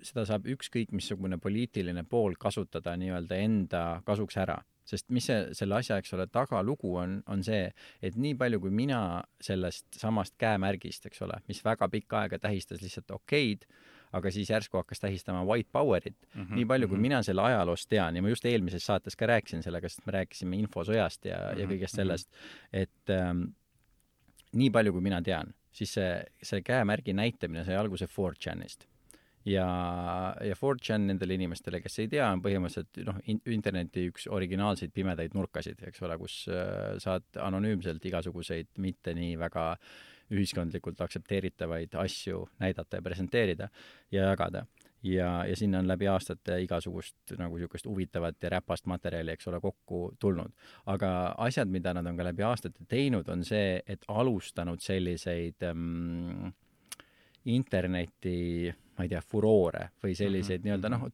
seda saab ükskõik missugune poliitiline pool kasutada nii-öelda enda kasuks ära. Sest mis selle asja, eks ole, tagalugu on see, et nii palju kui mina sellest samast käemärgist, eks ole, mis väga pikka aega tähistas lihtsalt okeid, aga siis järsku hakkas tähistama white powerit. Nii palju kui mina selle ajaloost tean, ja ma just eelmises saates ka rääkisin sellega, sest me rääkisime infosõjast ja kõigest sellest, et nii palju kui mina tean, siis see käemärgi näitamine sai alguse 4chanist. Ja 4chan nendele inimestele, kes ei tea, on põhimõtteliselt interneti üks originaalseid pimedaid nurkasid, eks ole, kus saad anonüümselt igasuguseid mitte nii väga ühiskondlikult aktsepteeritavaid asju näidata ja presenteerida ja jagada. Ja sinna on läbi aastate igasugust nagu niisugust huvitavat ja räpast materjali, eks ole, kokku tulnud. Aga asjad, mida nad on ka läbi aastate teinud, on see, et alustanud selliseid interneti, ma ei tea, furoore või selliseid nii-öelda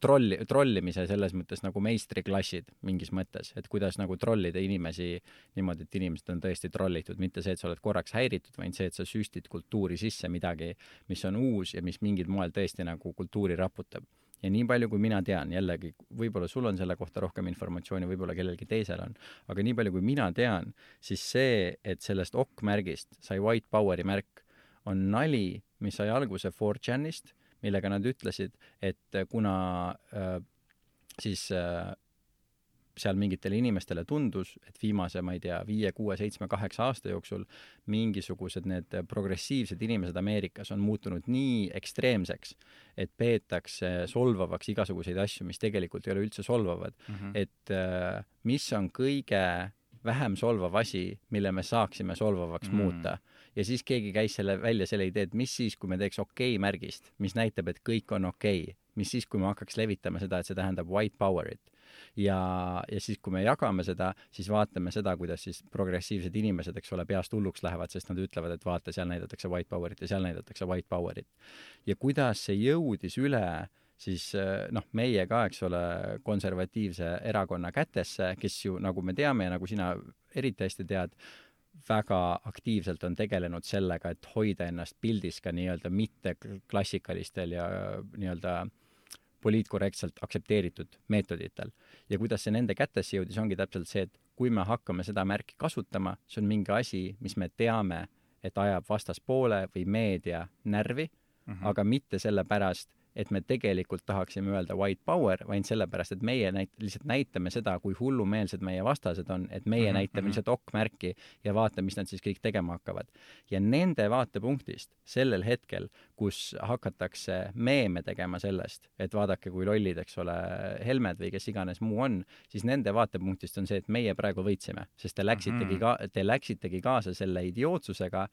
trollimise selles mõttes nagu meistriklassid mingis mõttes, et kuidas nagu trollida inimesi niimoodi, et inimesed on tõesti trollitud, mitte see, et sa oled korraks häiritud, vaid see, et sa süstid kultuuri sisse midagi, mis on uus ja mis mingil moel tõesti nagu kultuuri raputab. Ja nii palju, kui mina tean, jällegi, võib-olla sul on selle kohta rohkem informatsiooni, võib-olla kellelgi teisel on, aga nii palju, kui mina tean, siis see, et sellest okkmärgist sai white poweri märk, on nali, mis sai alguse 4chanist, millega nad ütlesid, et kuna siis seal mingitele inimestele tundus, et viimase, ma ei tea, 5, 6, 7, 8 aasta jooksul mingisugused need progressiivsed inimesed Ameerikas on muutunud nii ekstreemseks, et peetakse solvavaks igasuguseid asju, mis tegelikult ei ole üldse solvavad. Et mis on kõige vähem solvav asi, mille me saaksime solvavaks muuta. Ja siis keegi käis välja selle idee, et mis siis, kui me teeks okei-märgist, mis näitab, et kõik on okei. Mis siis, kui me hakkaks levitama seda, et see tähendab white powerit. Ja siis, kui me jagame seda, siis vaatame seda, kuidas siis progressiivsed inimesed, eks ole, peast hulluks lähevad, sest nad ütlevad, et vaata, seal näidatakse white powerit ja seal näidatakse white powerit. Ja kuidas see jõudis üle siis meie ka, eks ole, konservatiivse erakonna kätesse, kes ju, nagu me teame ja nagu sina eriti hästi tead, väga aktiivselt on tegelenud sellega, et hoida ennast pildis ka nii-öelda mitte klassikalistel ja nii-öelda poliitkorrektselt aktsepteeritud meetoditel. Ja kuidas see nende kätesse jõudis, ongi täpselt see, et kui me hakkame seda märki kasutama, see on mingi asi, mis me teame, et ajab vastaspoole või meedia närvi, aga mitte sellepärast, et me tegelikult tahaksime öelda white power, vaid sellepärast, et meie lihtsalt näitame seda, kui hullumeelsed meie vastased on, et meie näitame lihtsalt OK-märki ja vaatame, mis nad siis kõik tegema hakkavad. Ja nende vaatepunktist sellel hetkel, kus hakatakse meeme tegema sellest, et vaadake, kui lollid, eks ole, Helmed või kes iganes muu on, siis nende vaatepunktist on see, et meie praegu võitsime, sest te läksitegi kaasa selle idiootsusega,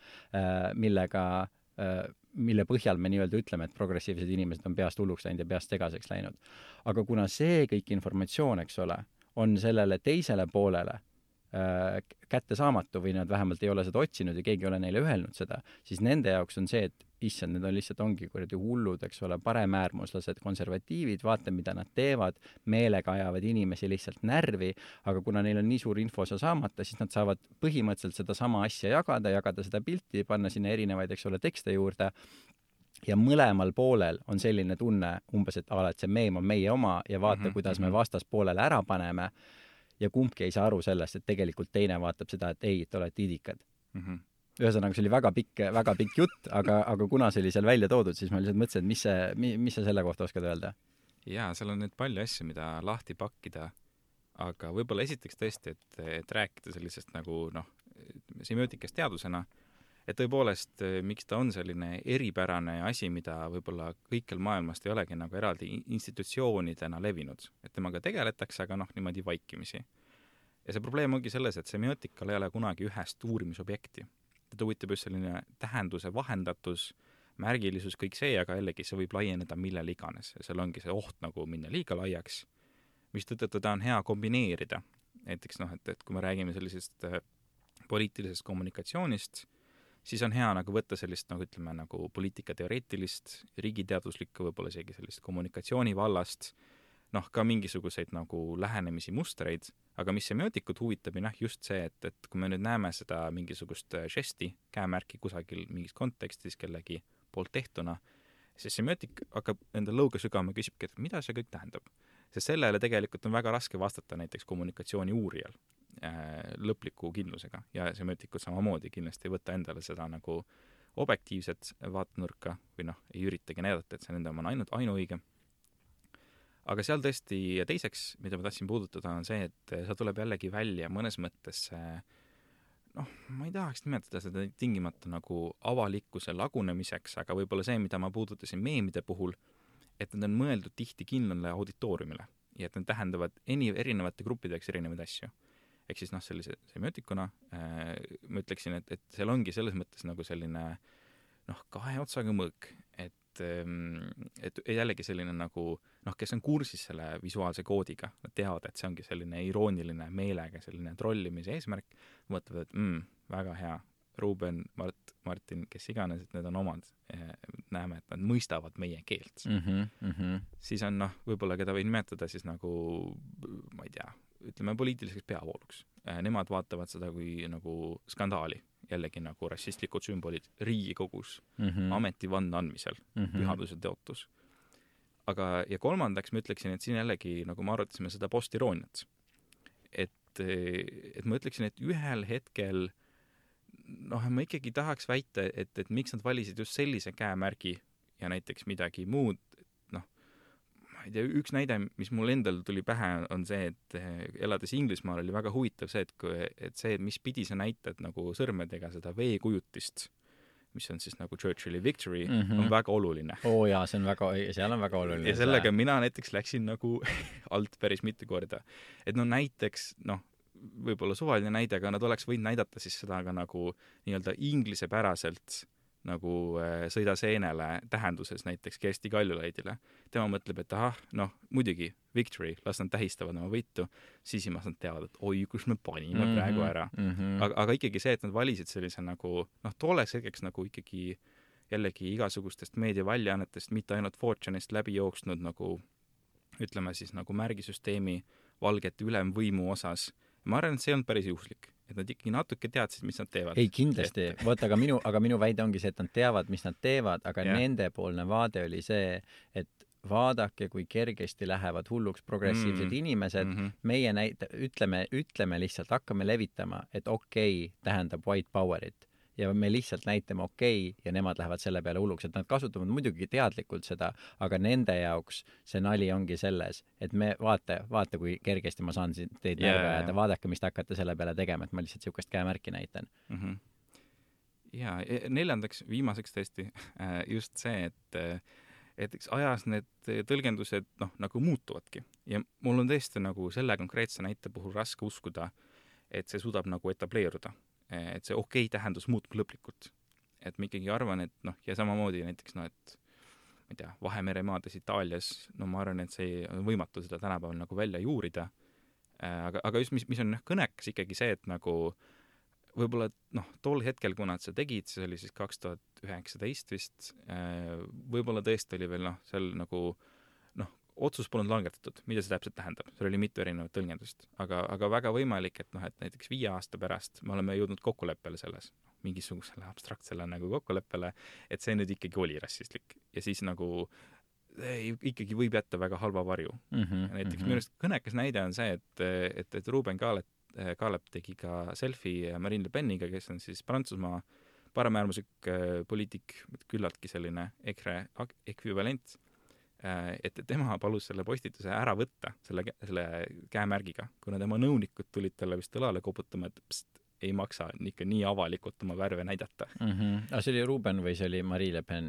mille põhjal me nii-öelda ütleme, et progressiivsed inimesed on peast hulluks läinud ja peast segaseks läinud. Aga kuna see kõik informatsioon, eks ole, on sellele teisele poolele kättesaamatu või nad vähemalt ei ole seda otsinud ja keegi ei ole neile öelnud seda, siis nende jaoks on see, et issand, need on lihtsalt ongi kuradi hullud, eks ole, paremäärmuslased, konservatiivid, vaata, mida nad teevad, meelega ajavad inimesi lihtsalt närvi, aga kuna neil on nii suur info saamata, siis nad saavad põhimõtteliselt seda sama asja jagada seda pilti, panna sinna erinevaid, eks ole, tekste juurde ja mõlemal poolel on selline tunne umbes, et et see meem on meie oma ja vaata, kuidas me vastaspoolele ära paneme ja kumbki ei saa aru sellest, et tegelikult teine vaatab seda, et ei, et olete idikad. Ühesõnaga, see oli väga pikk jutt, aga kuna see oli seal välja toodud, siis ma lihtsalt mõtlesin, et mis sa selle kohta oskad öelda? Jaa, seal on nüüd palju asju, mida lahti pakkida, aga võib-olla esiteks tõesti, et rääkida sellisest nagu semiootikast teadusena, et tõepoolest, miks ta on selline eripärane asi, mida võib-olla kõikjal maailmast ei olegi nagu eraldi institutsioonidena levinud. Et temaga tegeletakse, aga niimoodi vaikimisi. Ja see probleem ongi selles, et semiootikal ei ole kunagi ühest uurimisobjekti. Ta huvitab just selline tähenduse vahendatus, märgilisus, kõik see, aga jällegi see võib laieneda millel iganes. Ja seal ongi see oht nagu minna liiga laiaks, mis tõttu ta on hea kombineerida. Näiteks, et kui me räägime sellisest poliitilisest kommunikatsioonist, siis on hea nagu võtta sellist, ütleme, nagu poliitikateoreetilist, riigiteaduslikku, võib-olla isegi sellist kommunikatsiooni vallast, ka mingisuguseid nagu lähenemisi mustreid, aga mis semiootikut huvitab ja just see, et kui me nüüd näeme seda mingisugust žesti, käemärki kusagil mingis kontekstis kellegi poolt tehtuna, siis semiootik hakkab enda lõuga sügama ja küsibki, et mida see kõik tähendab. Sest sellele tegelikult on väga raske vastata näiteks kommunikatsiooni uurijal lõpliku kindlusega ja semiotikud samamoodi kindlasti ei võta endale seda nagu objektiivset vaatenurka või ei üritagi näidata, et see nende on ainult ainuõige. Aga seal tõesti ja teiseks, mida ma tahtsin puudutada, on see, et see tuleb jällegi välja mõnes mõttes ma ei tahaks nimetada seda tingimata nagu avalikkuse lagunemiseks, aga võib-olla see, mida ma puudutasin meemide puhul, et need on mõeldud tihti kindlale auditooriumile ja et need tähendavad erinevate gruppideks erinevaid asju. Ehk siis sellise semiootikuna ma ütleksin, et seal ongi selles mõttes nagu selline kahe otsaga mõõk, et jällegi selline nagu kes on kursis selle visuaalse koodiga, nad teavad, et see ongi selline irooniline meelega, selline trollimise eesmärk, mõtlevad, et väga hea, Ruben, Martin, kes iganes, et need on omad, näeme, et nad mõistavad meie keelt. Siis on võib-olla, keda või nimetada siis nagu, ma ei tea, ütleme poliitiliseks peavooluks. Nemad vaatavad seda kui nagu skandaali, jällegi nagu rassistlikud sümbolid Riigikogus, ametivanne andmisel, pühaduse teotus. Aga ja kolmandaks ma ütleksin, et siin jällegi, nagu me arutasime seda postirooniat, et ma ütleksin, et ühel hetkel ma ikkagi tahaks väita, et miks nad valisid just sellise käemärgi ja näiteks midagi muud, ma ei tea, üks näide, mis mul endal tuli pähe, on see, et elades Inglismaal oli väga huvitav see, et see, mis pidi sa näitad nagu sõrmedega seda veekujutist, mis on siis nagu Churchilli Victory, on väga oluline. Jaa, seal on väga oluline. Ja sellega mina näiteks läksin nagu alt päris mitu korda. Et näiteks, võib-olla suvaline näide, aga nad oleks võinud näidata siis seda ka nagu nii-öelda inglisepäraselt nagu sõida seenele tähenduses näiteks Kersti Kaljulaidile. Tema mõtleb, et muidugi Victory, las nad tähistavad oma võitu, sisimas nad teavad, et oi, kus me panime praegu ära. Aga ikkagi see, et nad valisid sellise nagu, tooleks hetkeks nagu ikkagi jällegi igasugustest meediaväljaannetest, mitte ainult Fortune'ist läbi jooksnud nagu ütleme siis nagu märgisüsteemi valgete ülemvõimu osas. Ma arvan, et see on päris juhuslik, et nad ikkagi natuke teadsid, mis nad teevad. Ei, kindlasti. Võt, aga minu väide ongi see, et nad teavad, mis nad teevad, aga nendepoolne vaade oli see, et vaadake, kui kergesti lähevad hulluks progressiivsed inimesed. Meie ütleme lihtsalt, hakkame levitama, et okei tähendab white powerit. Ja me lihtsalt näitame okei ja nemad lähevad selle peale hulluks, et nad kasutavad muidugi teadlikult seda, aga nende jaoks see nali ongi selles, et me vaata kui kergesti ma saan teid närve ajada, vaadake, mis te hakkate selle peale tegema, et ma lihtsalt siukest käemärki näitan. Ja neljandaks, viimaseks tõesti just see, et eks ajas need tõlgendused nagu muutuvadki. Ja mul on tõesti nagu selle konkreetse näite puhul raske uskuda, et see suudab nagu etableeruda. Et see okei tähendus muutub lõplikult. Et ma ikkagi arvan, et ja samamoodi näiteks, et ma ei tea, Vahemere maades Itaalias, ma arvan, et see on võimatu seda tänapäeval nagu välja juurida. Aga just, mis on kõnekas ikkagi see, et nagu võib-olla tol hetkel, kuna nad seda tegid, see oli siis 2019 vist, võib-olla tõesti oli veel seal nagu otsus polnud langetatud, mida see täpselt tähendab. See oli mitu erinevat tõlgendust. Aga väga võimalik, et näiteks 5 aasta pärast me oleme jõudnud kokkuleppele selles, mingisugusele abstraktsele nagu kokkuleppele, et see nüüd ikkagi oli rassistlik. Ja siis nagu ikkagi võib jätta väga halva varju. Näiteks minu arust kõnekas näide on see, et Ruben Kaalep tegi ka selfie Marine Le Peniga, kes on siis Prantsusmaa paremäärmuslik poliitik, küllaltki selline EKRE ekvivalent. Et tema palus selle postituse ära võtta selle käemärgiga, kuna tema nõunikud tulid talle vist õlale koputama, et ei maksa ikka nii avalikult oma värve näidata. Aga see oli Ruben või see oli Marine Le Pen?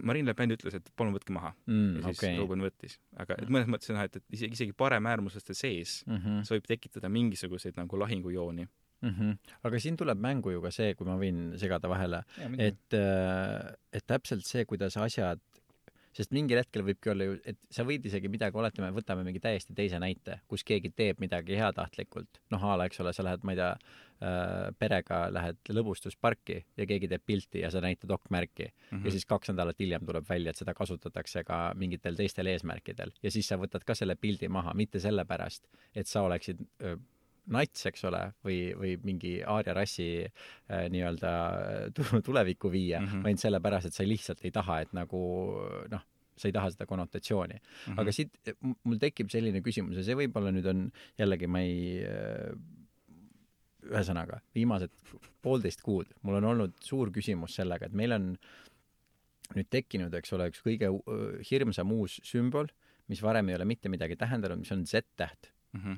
Marine Le Pen ütles, et palun võtke maha. Ja siis Ruben võttis. Aga mõnes mõttes on, et isegi paremäärmuslaste sees see võib tekitada mingisuguseid nagu lahingujooni. Aga siin tuleb mängu ju ka see, kui ma võin segada vahele, et täpselt see, kuidas asjad, sest mingil hetkel võibki olla ju, et sa võid isegi midagi, oletame, võtame mingi täiesti teise näite, kus keegi teeb midagi heatahtlikult. Ala, eks ole, sa lähed, ma ei tea, perega lähed lõbustusparki ja keegi teeb pilti ja sa näitad okmärki. Ja siis 2 nädalat hiljem tuleb välja, et seda kasutatakse ka mingitel teistel eesmärkidel. Ja siis sa võtad ka selle pildi maha, mitte sellepärast, et sa oleksid nats, eks ole, või mingi aaria rassi nii-öelda tulevikku viia, vaid sellepärast, et sa lihtsalt ei taha, et nagu, sa ei taha seda konnotatsiooni. Aga siit mul tekib selline küsimus ja see võib-olla nüüd on jällegi, ma ei ühesõnaga, viimased 1,5 kuud mul on olnud suur küsimus sellega, et meil on nüüd tekkinud, eks ole, üks kõige hirmsam uus sümbol, mis varem ei ole mitte midagi tähendanud, mis on Z-täht.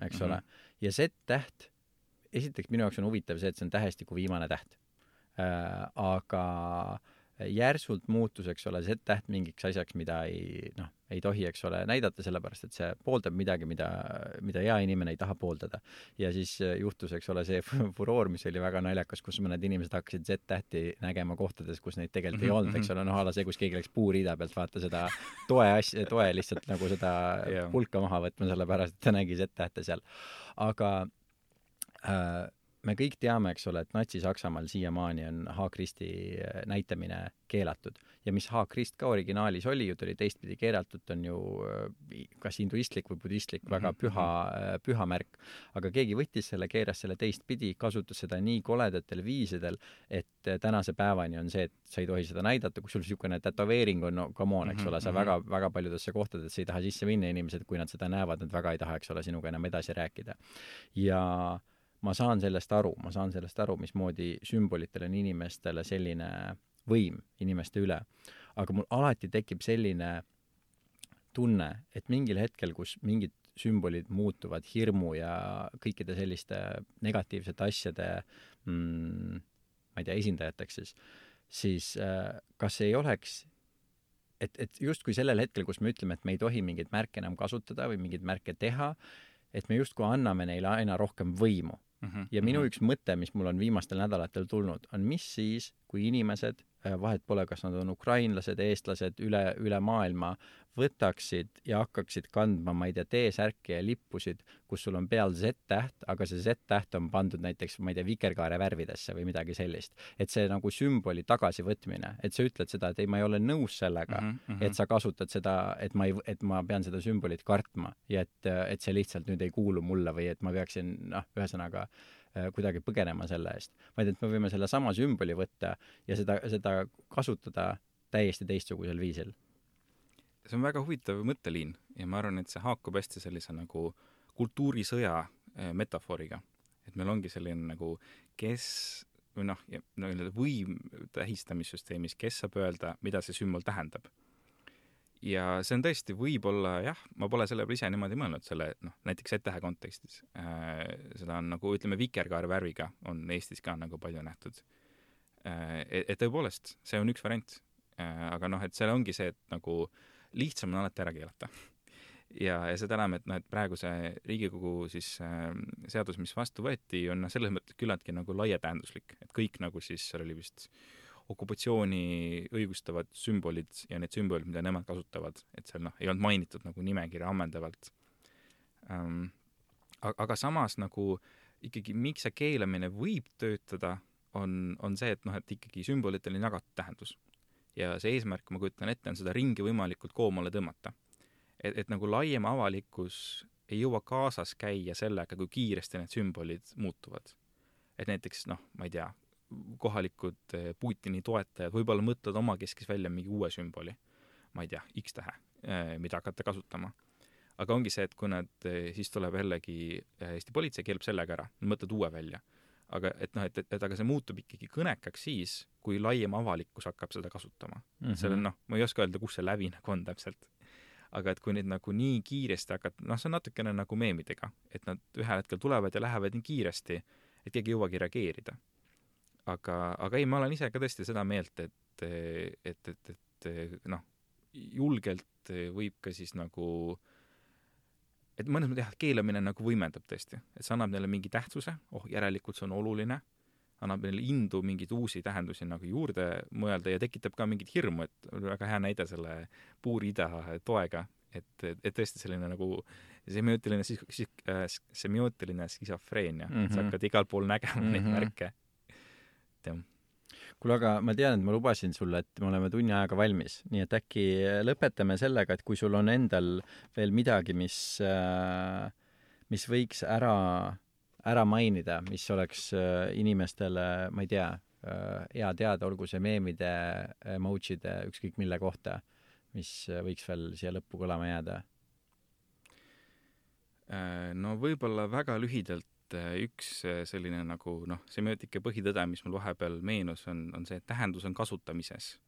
Eks ole. Ja Z-täht, esiteks minu jaoks on huvitav see, et see on tähestiku viimane täht. Aga järsult muutus, eks ole, Z-täht mingiks asjaks, mida ei tohi, eks ole, näidata, sellepärast, et see pooldab midagi, mida hea inimene ei taha pooldada. Ja siis juhtus, eks ole, see furoor, mis oli väga naljakas, kus mõned inimesed hakkasid Z-tähti nägema kohtades, kus neid tegelikult ei olnud, eks ole, ala see, kus keegi läks puuriida pealt vaata seda toe lihtsalt nagu seda pulka maha võtma, sellepärast, et ta nägi Z-tähte seal. Aga me kõik teame, eks ole, et Natsi-Saksamaal siiamaani on H-Kristi näitamine keelatud. Ja mis H-Krist ka originaalis oli, ju ta oli teistpidi keelatud, on ju kas hinduistlik või budistlik, väga püha märk. Aga keegi võttis selle, keeras selle teistpidi, kasutas seda nii koledatel viisidel, et tänase päevani on see, et sa ei tohi seda näidata, kui sul niisugune tätoveering on, come on, eks ole, sa väga paljudesse kohtadesse ei taha sisse minna, inimesed, kui nad seda näevad, nad väga ei taha, eks ole, sinuga enam edasi rääkida. Ja ma saan sellest aru, mismoodi sümbolitel on inimestele selline võim inimeste üle. Aga mul alati tekib selline tunne, et mingil hetkel, kus mingid sümbolid muutuvad hirmu ja kõikide selliste negatiivsete asjade ma ei tea, esindajateks siis kas ei oleks, et justkui sellel hetkel, kus me ütleme, et me ei tohi mingeid märke enam kasutada või mingeid märke teha, et me justkui anname neile aina rohkem võimu. Ja minu üks mõte, mis mul on viimastel nädalatel tulnud, on mis siis, kui inimesed vahet pole, kas nad on ukrainlased, eestlased, üle maailma, võtaksid ja hakkaksid kandma, ma ei tea, T-särki ja lippusid, kus sul on peal Z-täht, aga see Z-täht on pandud näiteks, ma ei tea, vikerkaare värvidesse või midagi sellist. Et see nagu sümboli tagasivõtmine, et sa ütled seda, et ei, ma ei ole nõus sellega, et sa kasutad seda, et ma pean seda sümbolit kartma ja et see lihtsalt nüüd ei kuulu mulle või et ma peaksin, ühesõnaga kuidagi põgenema selle eest. Vaid et me võime selle sama sümboli võtta ja seda kasutada täiesti teistsugusel viisil. See on väga huvitav mõtteliin ja ma arvan, et see haakub hästi sellise nagu kultuurisõja metafooriga. Et meil ongi selline nagu võim tähistamissüsteemis, kes saab öelda, mida see sümbol tähendab. Ja see on tõesti võib-olla, jah, ma pole selle ise niimoodi mõelnud selle, näiteks Z-tähe kontekstis. Seda on nagu, ütleme, vikerkaare värviga on Eestis ka nagu palju nähtud. Et tõepoolest, see on üks variant. Aga et seal ongi see, et nagu lihtsam on alati ära keelata. Ja seda enam, et praegu see Riigikogu siis seadus, mis vastu võeti, on selles mõttes küllaltki nagu laietähenduslik, et kõik nagu siis seal oli vist okupatsiooni õigustavad sümbolid ja need sümbolid, mida nemad kasutavad, et seal ei olnud mainitud nagu nimekirja ammendavalt. Aga samas nagu ikkagi miks see keelamine võib töötada, on see, et ikkagi sümbolitel on jagatud tähendus. Ja see eesmärk, ma kujutan ette, on seda ringi võimalikult koomale tõmmata. Et nagu laiem avalikkus ei jõua kaasas käia sellega, kui kiiresti need sümbolid muutuvad. Et näiteks, ma ei tea, kohalikud Putini toetajad võib-olla mõtlevad oma keskis välja mingi uue sümboli, ma ei tea, X-tähe, mida hakata kasutama. Aga ongi see, et kui nad, siis tuleb jällegi Eesti politsei keelab sellega ära, nad mõtled uue välja. Aga aga see muutub ikkagi kõnekaks siis, kui laiem avalikkus hakkab seda kasutama. Selle, ma ei oska öelda, kus see läbi nagu on täpselt. Aga et kui neid nagu nii kiiresti hakkad, see on natukene nagu meemidega, et nad ühel hetkel tulevad ja lähevad nii kiiresti, et keegi ei jõuagi reageerida. Aga ei, ma olen ise ka tõesti seda meelt, et julgelt võib ka siis nagu et mõnes mõttes keelamine nagu võimendab tõesti, et see annab neile mingi tähtsuse, järelikult see on oluline, annab neile indu mingeid uusi tähendusi nagu juurde mõelda ja tekitab ka mingit hirmu, et väga hea näide selle puurida toega, et tõesti selline nagu semiootiline skisofreenia, sa hakkad igal pool nägema neid märke. Kuule, aga ma tean, et ma lubasin sulle, et me oleme tunni ajaga valmis, nii et äkki lõpetame sellega, et kui sul on endal veel midagi, mis võiks ära mainida, mis oleks inimestele, ma ei tea, hea teada, olgu see meemide, emojide, ükskõik mille kohta, mis võiks veel siia lõppu kõlama jääda? No võib-olla väga lühidalt üks selline nagu semiootika põhitõde, mis mul vahepeal meenus, on see, et tähendus on kasutamises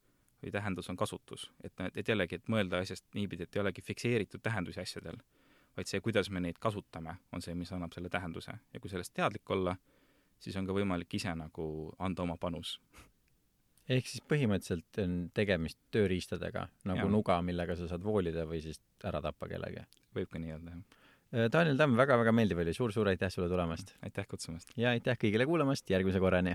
või tähendus on kasutus. Et jällegi, et mõelda asjast niipidi, et ei olegi fikseeritud tähendusi asjadel, vaid see, kuidas me neid kasutame, on see, mis annab selle tähenduse. Ja kui sellest teadlik olla, siis on ka võimalik ise nagu anda oma panus. Ehk siis põhimõtteliselt on tegemist tööriistadega, nagu nuga, millega sa saad voolida või siis ära tappa kellegi. Võib ka nii öelda, jah. Daniel Tamm, väga-väga meeldiv oli. Suur aitäh sulle tulemast. Aitäh kutsumast. Ja aitäh kõigile kuulamast. Järgmise korrani.